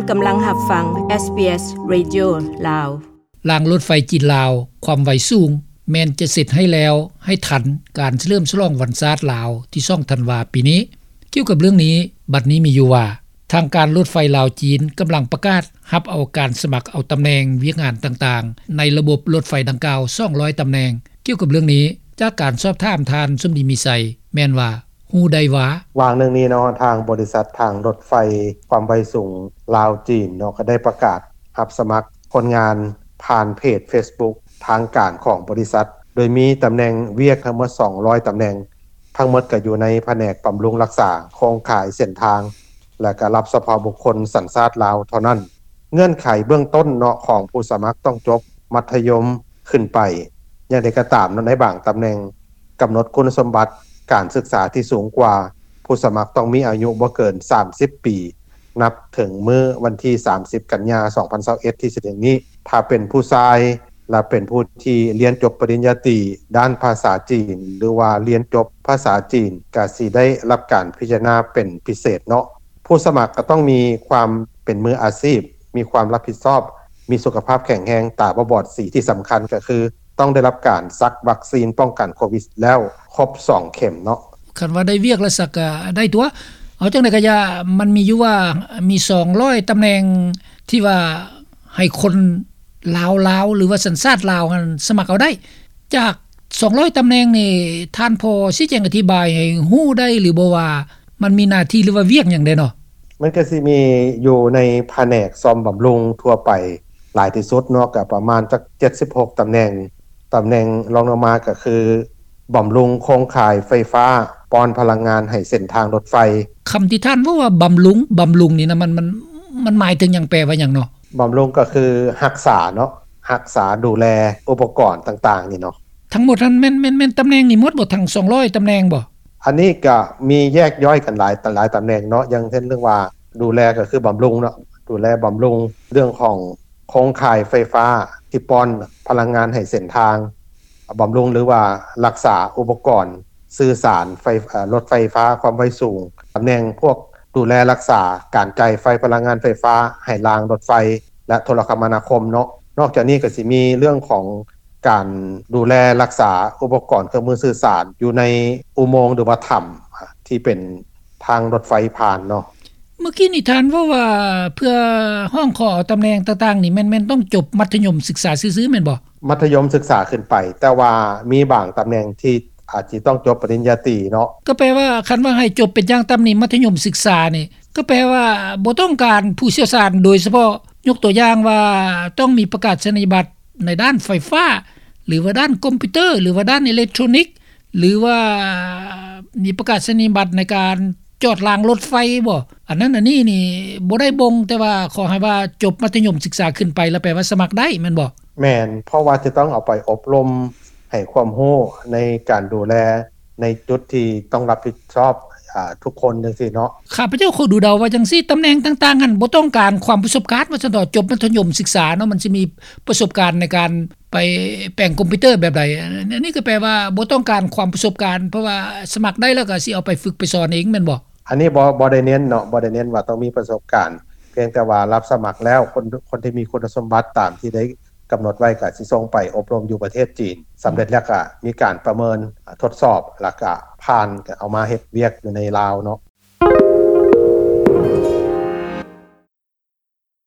ກຳລັງຮັບຟັງ SBS Radio ລາວ. ລາງລົດໄຟຈີນ-ລາວ ຄວາມໄວສູງ ແມ່ນຈະເສັດໃຫ້ແລ້ວໃຫ້ທັນການສະເຫຼີມສະຫຼອງວັນຊາດລາວທີສອງທັນວາປີນີ້. ກ່ຽວກັບເລື່ອງນີ້, ບັດນີ້ມີຢູ່ວ່າ ທາງການລົດໄຟລາວ-ຈີນ ກຳລັງປະກາດຮັບເອົາການສະໝັກເອົາຕຳແໜ່ງວຽກງານຕ່າງໆ ໃນລະບົບລົດໄຟດັ່ງກ່າວ ສອງຮ້ອຍຕຳແໜ່ງ. ກ່ຽວກັບເລື່ອງນີ້, ຈາກການສອບຖາມທ່ານ ສົມດີ ມີໄຊ ແມ່ນວ່າ ຮູ້ໄດ້ວ່າ ວ່າງໜຶ່ງນີ້ເນາະ ທາງບໍລິສັດທາງລົດໄຟຄວາມໄວສູງລາວ-ຈີນເນາະ ກໍໄດ້ປະກາດຮັບສະໝັກຄົນງານຜ່ານເພຈເຟສບຸກທາງການຂອງບໍລິສັດ ໂດຍມີຕຳແໜ່ງວຽກທັງໝົດສອງຮ້ອຍຕຳແໜ່ງ, ທັງໝົດກໍຢູ່ໃນພະແນກບຳລຸງຮັກສາໂຄງຂ່າຍເສັ້ນທາງ ແລະ ກໍຮັບສະເພາະບຸກຄົນສັນຊາດລາວເທົ່ານັ້ນ. ເງື່ອນໄຂເບື້ອງຕົ້ນເນາະ ຂອງຜູ້ສະໝັກຕ້ອງຈົບມັດທະຍົມ ຂຶ້ນໄປ. ຢ່າງໃດກໍຕາມເນາະ ໃນບາງຕຳແໜ່ງກຳນົດຄຸນສົມບັດການສຶກສາທີ່ສູງກວ່າ, ຜູ້ສະໝັກຕ້ອງມີອາຍຸບໍ່ເກີນສາມສິບປີ ນັບເຖິງມື້ວັນທີສາມສິບ ກັນຍາ ສອງພັນຊາວເອັດ ທີ່ຈະເຖິງນີ້. ຖ້າເປັນຜູ້ຊາຍ ແລະ ເປັນຜູ້ທີ່ຮຽນຈົບປະລິນຍາຕີດ້ານພາສາຈີນ ຫຼືວ່າຮຽນຈົບພາສາຈີນ ກໍຊິໄດ້ຮັບການພິຈາລະນາເປັນພິເສດເນາະ. ຜູ້ສະໝັກກໍຕ້ອງມີຄວາມເປັນມືອາຊີບ, ມີຄວາມຮັບຜິດຊອບ, ມີສຸຂະພາບແຂງແຮງ, ຕາບໍ່ບອດສີ, ທີ່ສຳຄັນກໍຄືຕ້ອງໄດ້ຮັບການສັກວັກຊີນປ້ອງກັນໂຄວິດແລ້ວຄົບສອງເຂັມເນາະ. ຄັນວ່າໄດ້ວຽກແລ້ວສັກກໍໄດ້ຕົວະ. ເອົາຈັ່ງໃດກໍຢ່າ, ມັນມີຢູ່ວ່າມີສອງຮ້ອຍຕຳແໜ່ງທີ່ວ່າໃຫ້ຄົນລາວໆ ຫຼືວ່າສັນຊາດລາວຫັ້ນສະໝັກເອົາໄດ້. ຈາກສອງຮ້ອຍຕຳແໜ່ງນີ້ ທ່ານພໍຊີ້ແຈງອະທິບາຍໃຫ້ຮູ້ໄດ້ຫຼືບໍ່ວ່າ ມັນມີໜ້າທີ່ ຫຼືວ່າວຽກຫຍັງແດ່ເນາະ? ມັນກໍຊິມີຢູ່ໃນພະແນກສ້ອມບຳລຸງທົ່ວໄປຫຼາຍທີ່ສຸດເນາະ, ກໍປະມານຈັກເຈັດສິບຫົກຕຳແໜ່ງ. ຕຳແໜ່ງລອງລົງມາກໍຄື ບຳລຸງໂຄງຂ່າຍໄຟຟ້າ, ປ້ອນພະລັງງານໃຫ້ເສັ້ນທາງລົດໄຟ. ຄຳທີ່ທ່ານເວົ້າວ່າບຳລຸງ, ບຳລຸງນີ້ນະ ມັນ, ມັນ, ມັນໝາຍເຖິງຫຍັງ, ແປວ່າຫຍັງເນາະ? ບຳລຸງກໍຄືຮັກສາເນາະ, ຮັກສາດູແລອຸປະກອນຕ່າງໆນີ້ເນາະ. ທັງໝົດຫັ້ນແມ່ນ, ແມ່ນ, ແມ່ນຕຳແໜ່ງນີ້ໝົດບໍ່? ທັງສອງຮ້ອຍຕຳແໜ່ງບໍ່? ອັນນີ້ກໍມີແຍກຍ່ອຍກັນຫຼາຍ, ຫຼາຍຕຳແໜ່ງເນາະ, ຢ່າງເຊັ່ນເລື່ອງວ່າດູແລກໍຄືບຳລຸງເນາະ, ດູແລບຳລຸງເລື່ອງຂອງໂຄງຂ່າຍໄຟຟ້າທີ່ປ້ອນພະລັງງານໃຫ້ເສັ້ນທາງ, ບຳລຸງ ຫຼືວ່າຮັກສາອຸປະກອນສື່ສານໄຟ, ເອີ່, ລົດໄຟຟ້າຄວາມໄວສູງ, ຕຳແໜ່ງພວກດູແລຮັກສາການຈ່າຍໄຟ, ພະລັງງານໄຟຟ້າໃຫ້ລາງລົດໄຟ ແລະ ໂທລະຄະມະນາຄົມເນາະ. ນອກຈາກນີ້ກໍຊິມີເລື່ອງຂອງ ການດູແລຮັກສາອຸປະກອນເຄື່ອງມືສື່ສານຢູ່ໃນອຸໂມງ ຫຼືວ່າຖ້ຳທີ່ເປັນທາງລົດໄຟຜ່ານເນາະ. ເມື່ອກີ້ນີ້ທ່ານເວົ້າວ່າເພື່ອຮ້ອງຂໍເອົາຕຳແໜ່ງຕ່າງໆນີ້ ແມ່ນ, ແມ່ນຕ້ອງຈົບມັດທະຍົມສຶກສາຊື່ໆ ແມ່ນບໍ່? ມັດທະຍົມສຶກສາຂຶ້ນໄປ, ແຕ່ວ່າມີບາງຕຳແໜ່ງທີ່ອາດຊິຕ້ອງຈົບປະລິນຍາຕີເນາະ. ກໍແປວ່າຄັນວ່າໃຫ້ຈົບເປັນຢ່າງຕ່ຳນີ້ ມັດທະຍົມສຶກສານີ້ ກໍແປວ່າບໍ່ຕ້ອງການຜູ້ຊ່ຽວຊານໂດຍສະເພາະ, ຍົກຕົວຢ່າງວ່າຕ້ອງມີປະກາສະນີຍະບັດ ໃນດ້ານໄຟຟ້າ ຫຼືວ່າດ້ານຄອມພິວເຕີ ຫຼືວ່າດ້ານອີເລັກໂທຣນິກ ຫຼືວ່າມີປະກາສະນີຍະບັດໃນການຈອດລາງລົດໄຟບໍ? ອັນນັ້ນອັນນີ້ນີ້ບໍ່ໄດ້ບົ່ງ, ແຕ່ວ່າຂໍໃຫ້ວ່າຈົບມັດທະຍົມສຶກສາຂຶ້ນໄປ ແລ້ວແປວ່າສະໝັກໄດ້ແມ່ນບໍ? ແມ່ນ, ເພາະວ່າຈະຕ້ອງເອົາໄປອົບຮົມໃຫ້ຄວາມຮູ້ໃນການດູແລ ໃນຈຸດທີ່ຕ້ອງຮັບຜິດຊອບ, ອາ, ທຸກຄົນຈັ່ງຊີ້ເນາະ. ຂ້າພະເຈົ້າຂໍດູເດົາວ່າຈັ່ງຊີ້, ຕຳແໜ່ງຕ່າງໆຫັ້ນບໍ່ຕ້ອງການຄວາມປະສົບການວ່າຊັ້ນເຖາະ, ຈົບມັດທະຍົມສຶກສາເນາະ, ມັນຊິມີປະສົບການໃນການໄປແປງຄອມພິວເຕີແບບໃດ? ອັນນີ້ກໍແປວ່າບໍ່ຕ້ອງການຄວາມປະສົບການ, ເພາະວ່າສະໝັກໄດ້ແລ້ວກໍຊິເອົາໄປຝຶກໄປສອນເອງແມ່ນບໍ່? ອັນນີ້ບໍ່, ບໍ່ໄດ້ເນັ້ນເນາະ, ບໍ່ໄດ້ເນັ້ນວ່າຕ້ອງມີປະສົບການ, ພຽງແຕ່ວ່າຮັບສະໝັກແລ້ວ ຄົນ, ຄົນທີ່ມີຄຸນສົມບັດຕາມທີ່ໄດ້ ກຳນົດໄວ້ກໍຊິສົ່ງໄປອົບຮົມຢູ່ປະເທດຈີນ, ສຳເລັດແລ້ວກໍມີການປະເມີນທົດສອບ ແລ້ວກໍຜ່ານ ກໍເອົາມາເຮັດວຽກຢູ່ໃນລາວເນາະ.